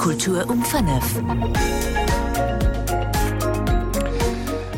Kultur um 5.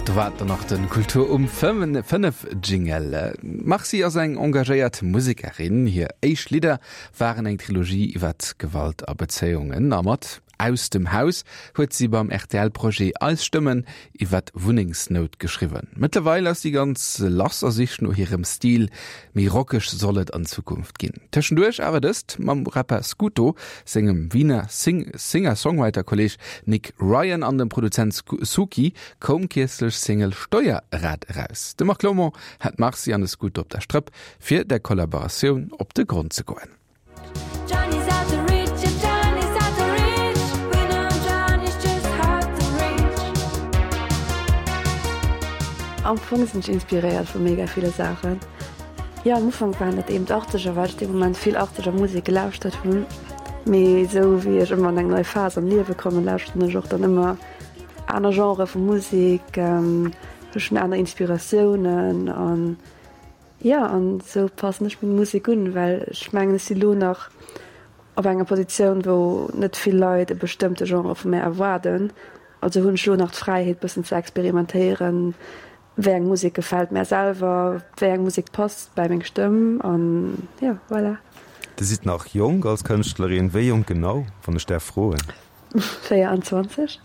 Do war dann nach den Kultur um 5 Jingle. D'Marcy ass eng engagéiert Musekerin. Hir éischt Lidder waren eng Trilogie iwwert Gewalt a Bezéiungen a mat Aus dem Haus huet si beim RTL-Projet Eis Stëmmen iwwer Wunnengsnout geschriwwen. Mëttlerweil ass si ganz lass a sicht no hirem Stil. Méi rockeg soll et an Zukunft ginn. Tëschenduerch awer dëst mam Rapper Scooto, sengem Wiener Singer-Songwriter-Kolleeg Nick Ryan an dem Produzent Sookee koum kierzlech Single Steuerrad eraus. De Marc Lomont hat d'Marcy an de Scooto op der Strëpp, fir der Kollaboratioun op de Grond ze goen. Am Fong sinn ech inspiréiert vu mega ville Saachen. Jo, am Ufank waren dat eben d'Achtzeger, well ech dee Moment vill Achtzeger Musek gelauschtert hunn. Mee esou wéi ech ëmmer an eng nei Phas am Liewe kommen, lauschteren ech och dann ëmmer aner Genrë vu Musek, ech hunn aner Inspiratiounen an Jo, an esou passen ech meng Musek un, well ech mengen, ech si lo nach op enger Positioun, wou net vill Leit e bestëmmte Genre vu mär erwaarden. Also hunn ech lo nach d'Fräiheet, bëssen ze experimentéieren, wéi eng Musek gefält mär selwer, wéi eng Musek passt bäi meng Stëmm an jo, voilà. Dir sidd nach jonk als Kënschtlerin. Wéi jonk genau, wann ech däerf froen? 24.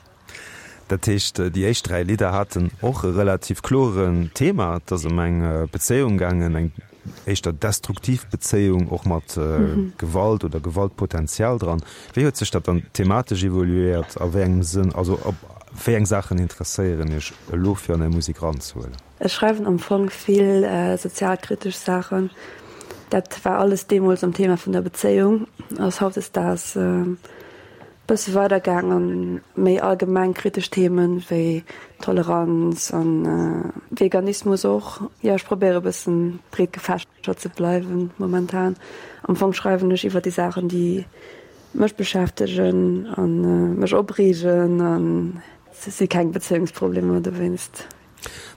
Dat heescht, déi éischt 3 Lidder haten och e relativ kloren Thema. Et ass ëm eng Bezéiung gaangen, eng éischter destruktiv Bezéiung, och mat Gewalt oder Gewaltpotenzial dran. Wéi huet sech dat dann thematesch evoluéiert? A wéi engem Sënn, also op wéi eng Saachen interesséieren Iech elo fir an Är Musek eranzehuelen? Ech schreiwen am Fong vill sozialkritesch Saachen. Dat war alles deemools am Thema vun der Bezéiung, ass hautdesdaags Bësse weider gaang an méi allgemeng kritesch Themen wéi Toleranz an Veganismus och. Jo, ech probéiere bëssen breet gefächert ze bleiwen momentan. Am Fong schreiwen ech iwwer déi Saachen déi mech beschäftegen an mech opreegen an et si keng Bezéiungsproblemer dowéinst.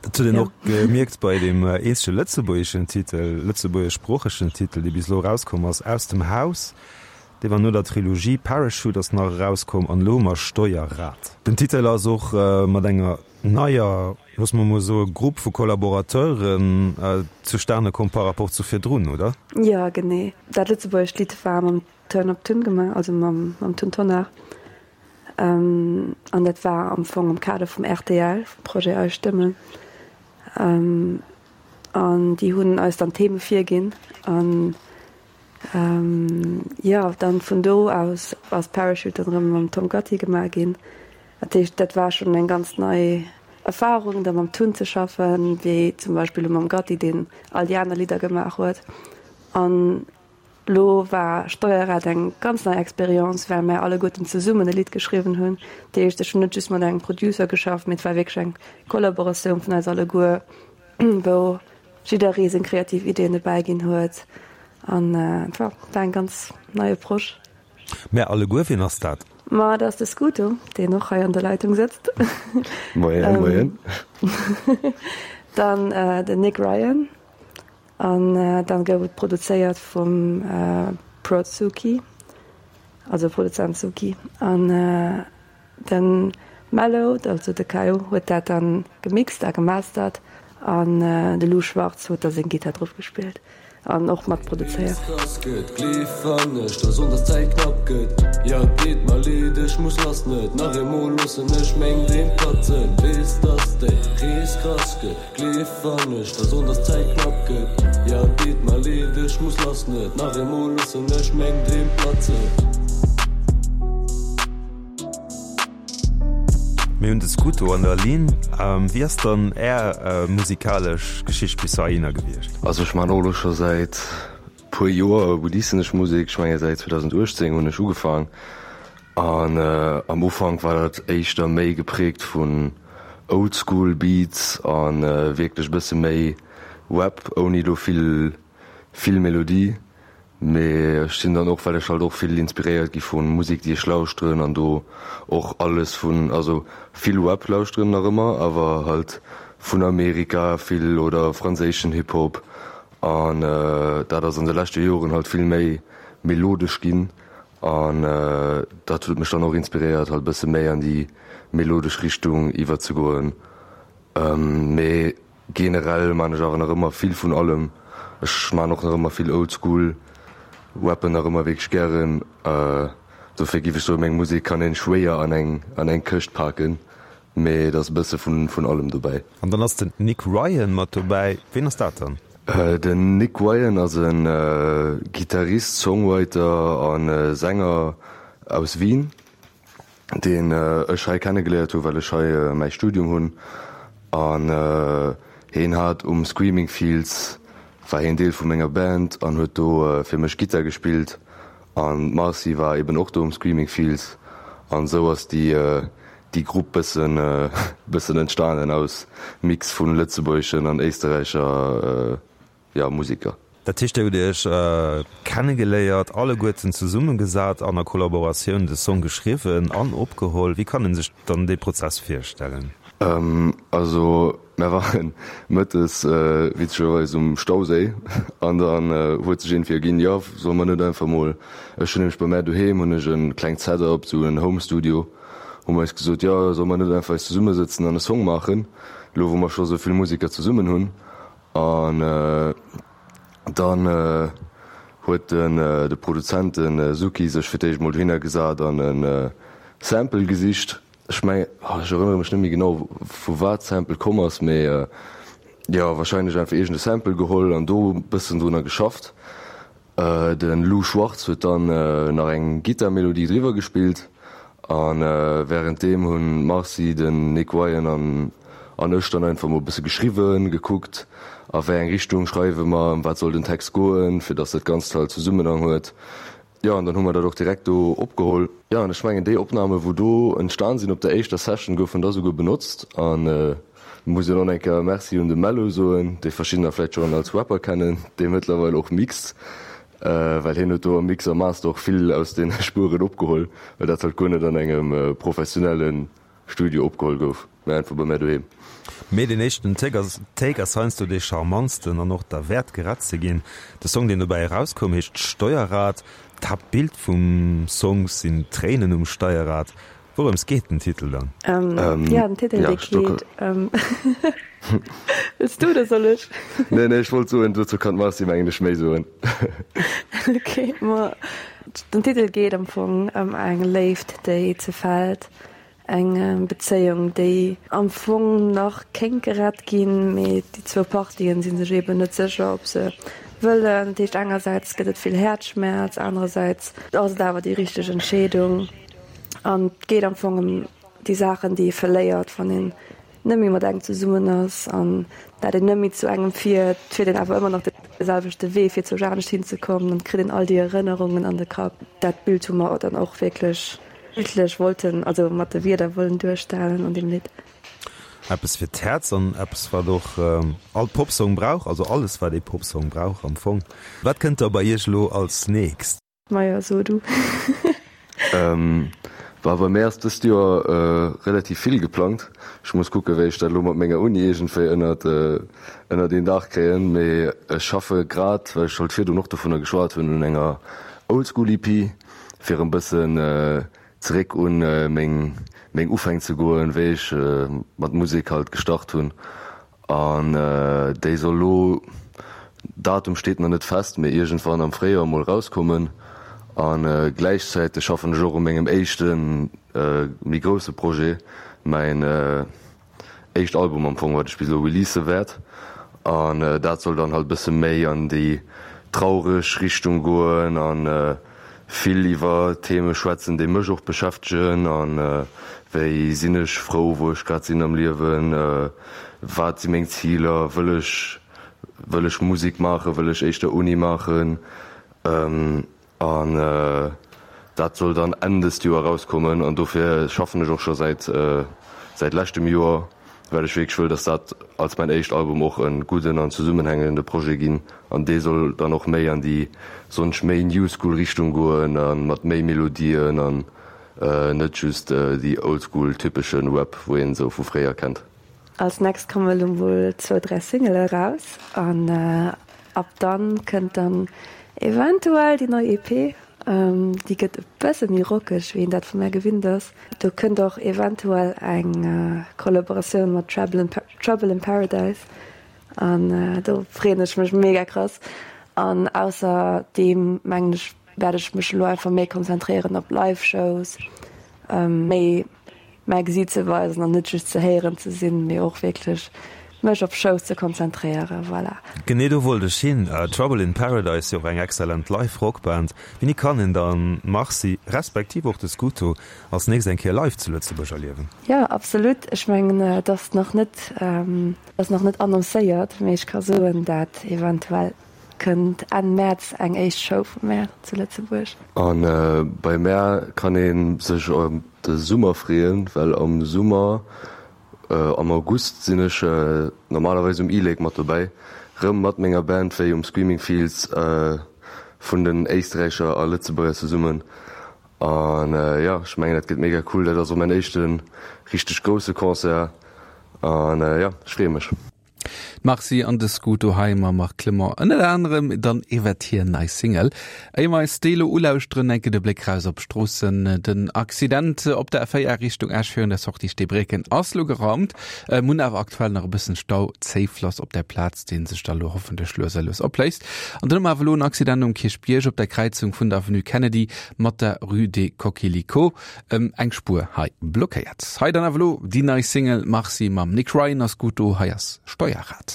Dat huet een och gemierkt bei deem eenzege lëtzebuergeschen Titel, lëtzebuergeschsproochegen Titel, dee bis elo erauskomm ass, Aus dem Haus. Dee war no der Trilogie Parachute ass nach erauskomm an elo hu mer Steuerrad. Den Titel ass och mat enger neier, loosse mer mol soe Grupp vu Collaborateuren zustane komm par rapport zu virdrun, oder? Jo, genee. Dat lëtzebuergescht Lidd war mam Turn Up Tun gemaach, also mam Tun Tonnar. An dat war am Fong am Kader vum rtl, vum Projet Eis Stëmmen. An déi hunn eis dann d'Theme virginn. An jo, dann vun do aus ass Parachute dann erëm mam Tom Gatti gemaach ginn. Dat heescht, dat war schonn eng ganz nei Erfarung, da mam Tun ze schaffen, wéi zum Beispill elo mam Gatti, deen all déi aner Lidder gemaach huet. An Lo war Steuerrad eng ganz nei Experience, well mär alleguerten zesummen e Lidd geschriwwen hunn. Dat heescht, ech hunn net just mat engem Producer geschafft, mee et war wierklech eng Kollaboratioun vun eis alleguer, wou jidderee seng kreativ Ideeën dobäi ginn huet. An et war eng ganz nei Approche. Mär alleguer, wien ass dat? Ma dat ass de Scooto, deen och hei an der Leitung sëtzt. Moien, moien. Dann den Nick Ryan. An dann gouf et produzéiert vum Prod Suki, also Produzent Suki. An de Mellow, also de Kayo, huet dat dann gemixt a gemastert an de Lou Schwartz huet da seng Gittar drop gespillt an och mat produzéiert. Gleef wann ech der soen, dass d'Zäit knapp gëtt. Ja et deet mer leed, ech muss lass, net nach eemol loossen ech meng Dreem platzen. Mir hunn de Scuto an der Linn. Wéi ass dann Är musikalesch Geschicht bis heihinner gewiescht? Also ech man och elo scho säit puer Joer releasen ech Musek. Ech menge säit 2018 hunn ech ugefaang. An am Ufank war dat éischter méi geprägt vun Oldschool Beats a wierklech e bësse méi Rap ouni do vill vill Melodie. Mee ech sinn dann och, well ech halt och vill inspiréiert gi vu Musek déi ech lauschteren an do och alles vun, also vill Rap lauschteren nach ëmmer, awer halt vun Amerika vill oder franséischen Hip Hop an dat ass an de leschte Joren halt vill méi melodesch ginn. An dat huet mech dann och inspiréiert halt e bësse méi an déi melodesch Richtung iwwerzegoen. Mee generell maan ech awer nach ëmmer vill vun allem. Ech maan och nach ëmmer vill Oldschool, rappen nach ëmmer wierklech gären. Dofir giff ech soen, meng Musek kann een schwéier an eng an eng Këscht paken, mee et ass e bësse vun vun allem dobäi. An dann ass den Nick Ryan mat dobäi. Ween ass dat dann? Den Nick Ryan ass e Gittarist, Songwriter a Sänger aus Wien, deen ech hei kennegeléiert hu well ech hei mäi Studium hunn. An heen hat um Screaming Fields war heen Deel vu menger Band an huet do fir mech Gittar gespillt. An d'Marcy war eben och do um Screaming Fields an esou ass déi déi Grupp bëssen bëssen entstanen aus Mix vun lëtzebuergeschen an éisterräicher jo Museker. Dat heescht dir hutt iech kennegeléiert, alleguerten zesummegesat an a Kollaboratioun de Song geschriwwen an opgeholl. Wéi kann een sech dann dee Prozess virstellen? Also Mer waren mëttes witzegerweis um Stauséi an dann huet sech iergendwéi erginn, jo solle mer net einfach mol, ech hunn nämlech bei mär doheem hunn ech e klengt Setup, sou en Home Studio, hu mer eis gesot, jo solle mer net einfach eis zesummesëtzen an e Song maachen, elo wou mer scho sou vill Museker zesummen hunn. An dann huet den de Produzent, de Suki, sech fir d'éischt mol dohinner gesat an e Sample gesicht. Ech mengen, ech erënnere mech net méi genau vu wat d'Sample komm ass, mee jo wahrscheinlech einfach iergend e Sample geholl an do e bëssen drunner geschafft. De Lou Schwartz huet dann nach eng Gittarmelodie driwwer gespillt a wärenddeem hunn d'Marcy, den Nick Ryan an an ech dann einfach mol e bësse geschriwwen, gekuckt a wéi eng Richtung schreiwe mer, ëm wat soll den Text goen, fir datt dat Ganzt halt Zesummenhang huet. Jo, an dann hu mer dat och direkt do opgeholl. Jo, an ech mengen, déi Opname wou do entstan sinn op der éischter Session, goufen da souguer benotzt. An muss jo nach eng Kéier Merci un de Mello soen, dee verschiddener vläicht schonn als Rapper kennen, dee mëttlerweil och mixt, well hien huet do am Mix a Master och vill aus deene Spueren opgeholl, well dat halt guer net an engem professionelle Studio opgeholl gouf, mä einfach bei mär doheem. Mee deen éischten Take ass Take ass heiansdo dee charmantsten an och derwäert gerett ze ginn. De Song deen dobäi erauskoum heescht Steuerrad. D'Haaptbild vum Song sinn Tréinen um Steierrad. Wourëms geet den Titel dann? Jo, den Titel dee geet ëm. Wëlls du oder soll ech? Nee, nee, ech wollt soen, dozou kann d'Marcy mengen ech méi soen. Ok, ma den Titel geet am Fong ëm eng Léift déi zerfält. Eng Bezéiung, déi am Fong nach kéint gerett ginn, mee déi zwou Partien si sech eeben net sécher, ob se wëllen. Dat heescht, engersäits gëtt et vill Häerzschmerz, anerersäits ass et awer déi richteg Entscheedung. An et geet am Fong ëm déi Saachen, déi ee verléiert, wann een net méi mat engem zesummen ass an dat een net méi zu engem fiert, fiert een awer ëmmer nach de selwechte Wee, fir zou anescht hinzekommen. Dann kritt een all déi Erënnerungen an de Kapp. Dat Bild hu mer dann och wierklech bildlech wollten, also mat de Wierder wollen duerstellen an deem Lidd. Eppes fir d'Häerz an eppes, wat och all Popsong brauch, also alles, wat ee Popsong brauch am Fong. Wat kënnt da bei Iech elo als nächst? Majo, so du. Bah, bei mär ass dëst Joer relativ vill geplangt. Ech muss kucken, wéi ech dat elo mat menger Uni iergendwéi ënnert ënnert een Daach kréien. Mee ech schaffe grad, well ech halt virdrun och dovunner geschwat hunn, un enger Oldschool-EP, fir en bëssen zeréck un meng meng Ufäng ze goen, wéi ech mat Musek halt gestart hunn. An déi soll lo, Datum steet nach net fest, mee iergendwann am Fréijoer mol rauskommen. A gläichzäiteg schaffen ech och u mengem éischte méi grousse Projet, mäin éischt Album am Fong, wat ech bis elo release wäert. An dat soll dann halt e bësse méi an déi traureg Richtung goen an vill iwwer Theme schwätzen, déi mech och beschäftegen an wéi sinn ech frou wou ech grad sinn am Liewen, wat si meng Ziler, wëll ech wëll ech Musek maachen, wëll ech éischter Uni maachen an dat soll dann Enn dëst Joer erauskommen an dofir schaffen ech och scho säit säit leschtem Joer. Well ech wierklech wëll, dass dat als mäin éischt Album och e gudden an zesummenhängende Projet ginn. An dee soll dann och méi an déi sonsch méi New School Richtung goen a mat méi Melodien an net just déi Old School typesche Rap, wou een esou vu fréier kennt. Als next kommen elo mol zwou, dräi Singele eraus an ab dann kënnt dann eventuell déi nei EP. Déi gëtt e bësse méi rockeg, wéi een dat vu mär gewinnt ass. Do kënnt och eventuell eng Kollaboratioun mat Trouble in Paradise an do freeën ech mech mega krass. An ausserdeem mengen ech, wäert ech mech elo einfach méi konzentréieren op Live-Shows, méi mäi Gesiit ze weisen an net just ze héieren ze sinn, mee och wierklech mech op Shows ze konzentréieren. Voilà. Genee do wollt ech hin. Trouble in Paradise, jo och eng excellent live Rockband. Wéini kann een dann d'Marcy, respektiv och de Scuto als nächst eng Kéier live zu Lëtzebuerg erliewen? Jo, absolut. Ech mengen, et ass nach net, ass nach net annoncéiert, mee ech ka soen, dat eventuell Kënnt Enn Mäerz eng éischt Show vu mär zu Lëtzebuerg. A bei mär kann ee sech op de Summer freeën, well am Summer, am August sinn ech normalerweis um e-Lake mat dobäi, rëm mat menger Band wéi um Screaming Fields vun den Éisträicher a Lëtzebuerger zesummen. An jo, ech mengen dat gëtt mega cool. Dat ass och mäin éischte richteg grousse Concert an jo, ech freeë mech. D'Marcy an de Scuto hei mam Marc Clement ënnert anerem dann iwwert hir nei Single. Éier mer eis déi elo ulauschteren, enke de Bléck raus op d'Stroossen. Den Accident op der A4 Richtung Esch virun der Sortie Steebrécken ass lo geraumt. Mir hunn awer aktuell nach e bëssen Stau, Zéiflass op der Plaz, dee sech da lo hoffentlech lues a lues opléist. An dann hu mer awer elo en Accident um Kierchbierg op der Kräizung vun der Avenue Kennedy mat der Rue des Coquelicots. Eng Spuer hei blockéiert. Hei dann awer elo déi nei Single Marcy mam Nick Ryan ass gutt do. Hei ass Steuerrad.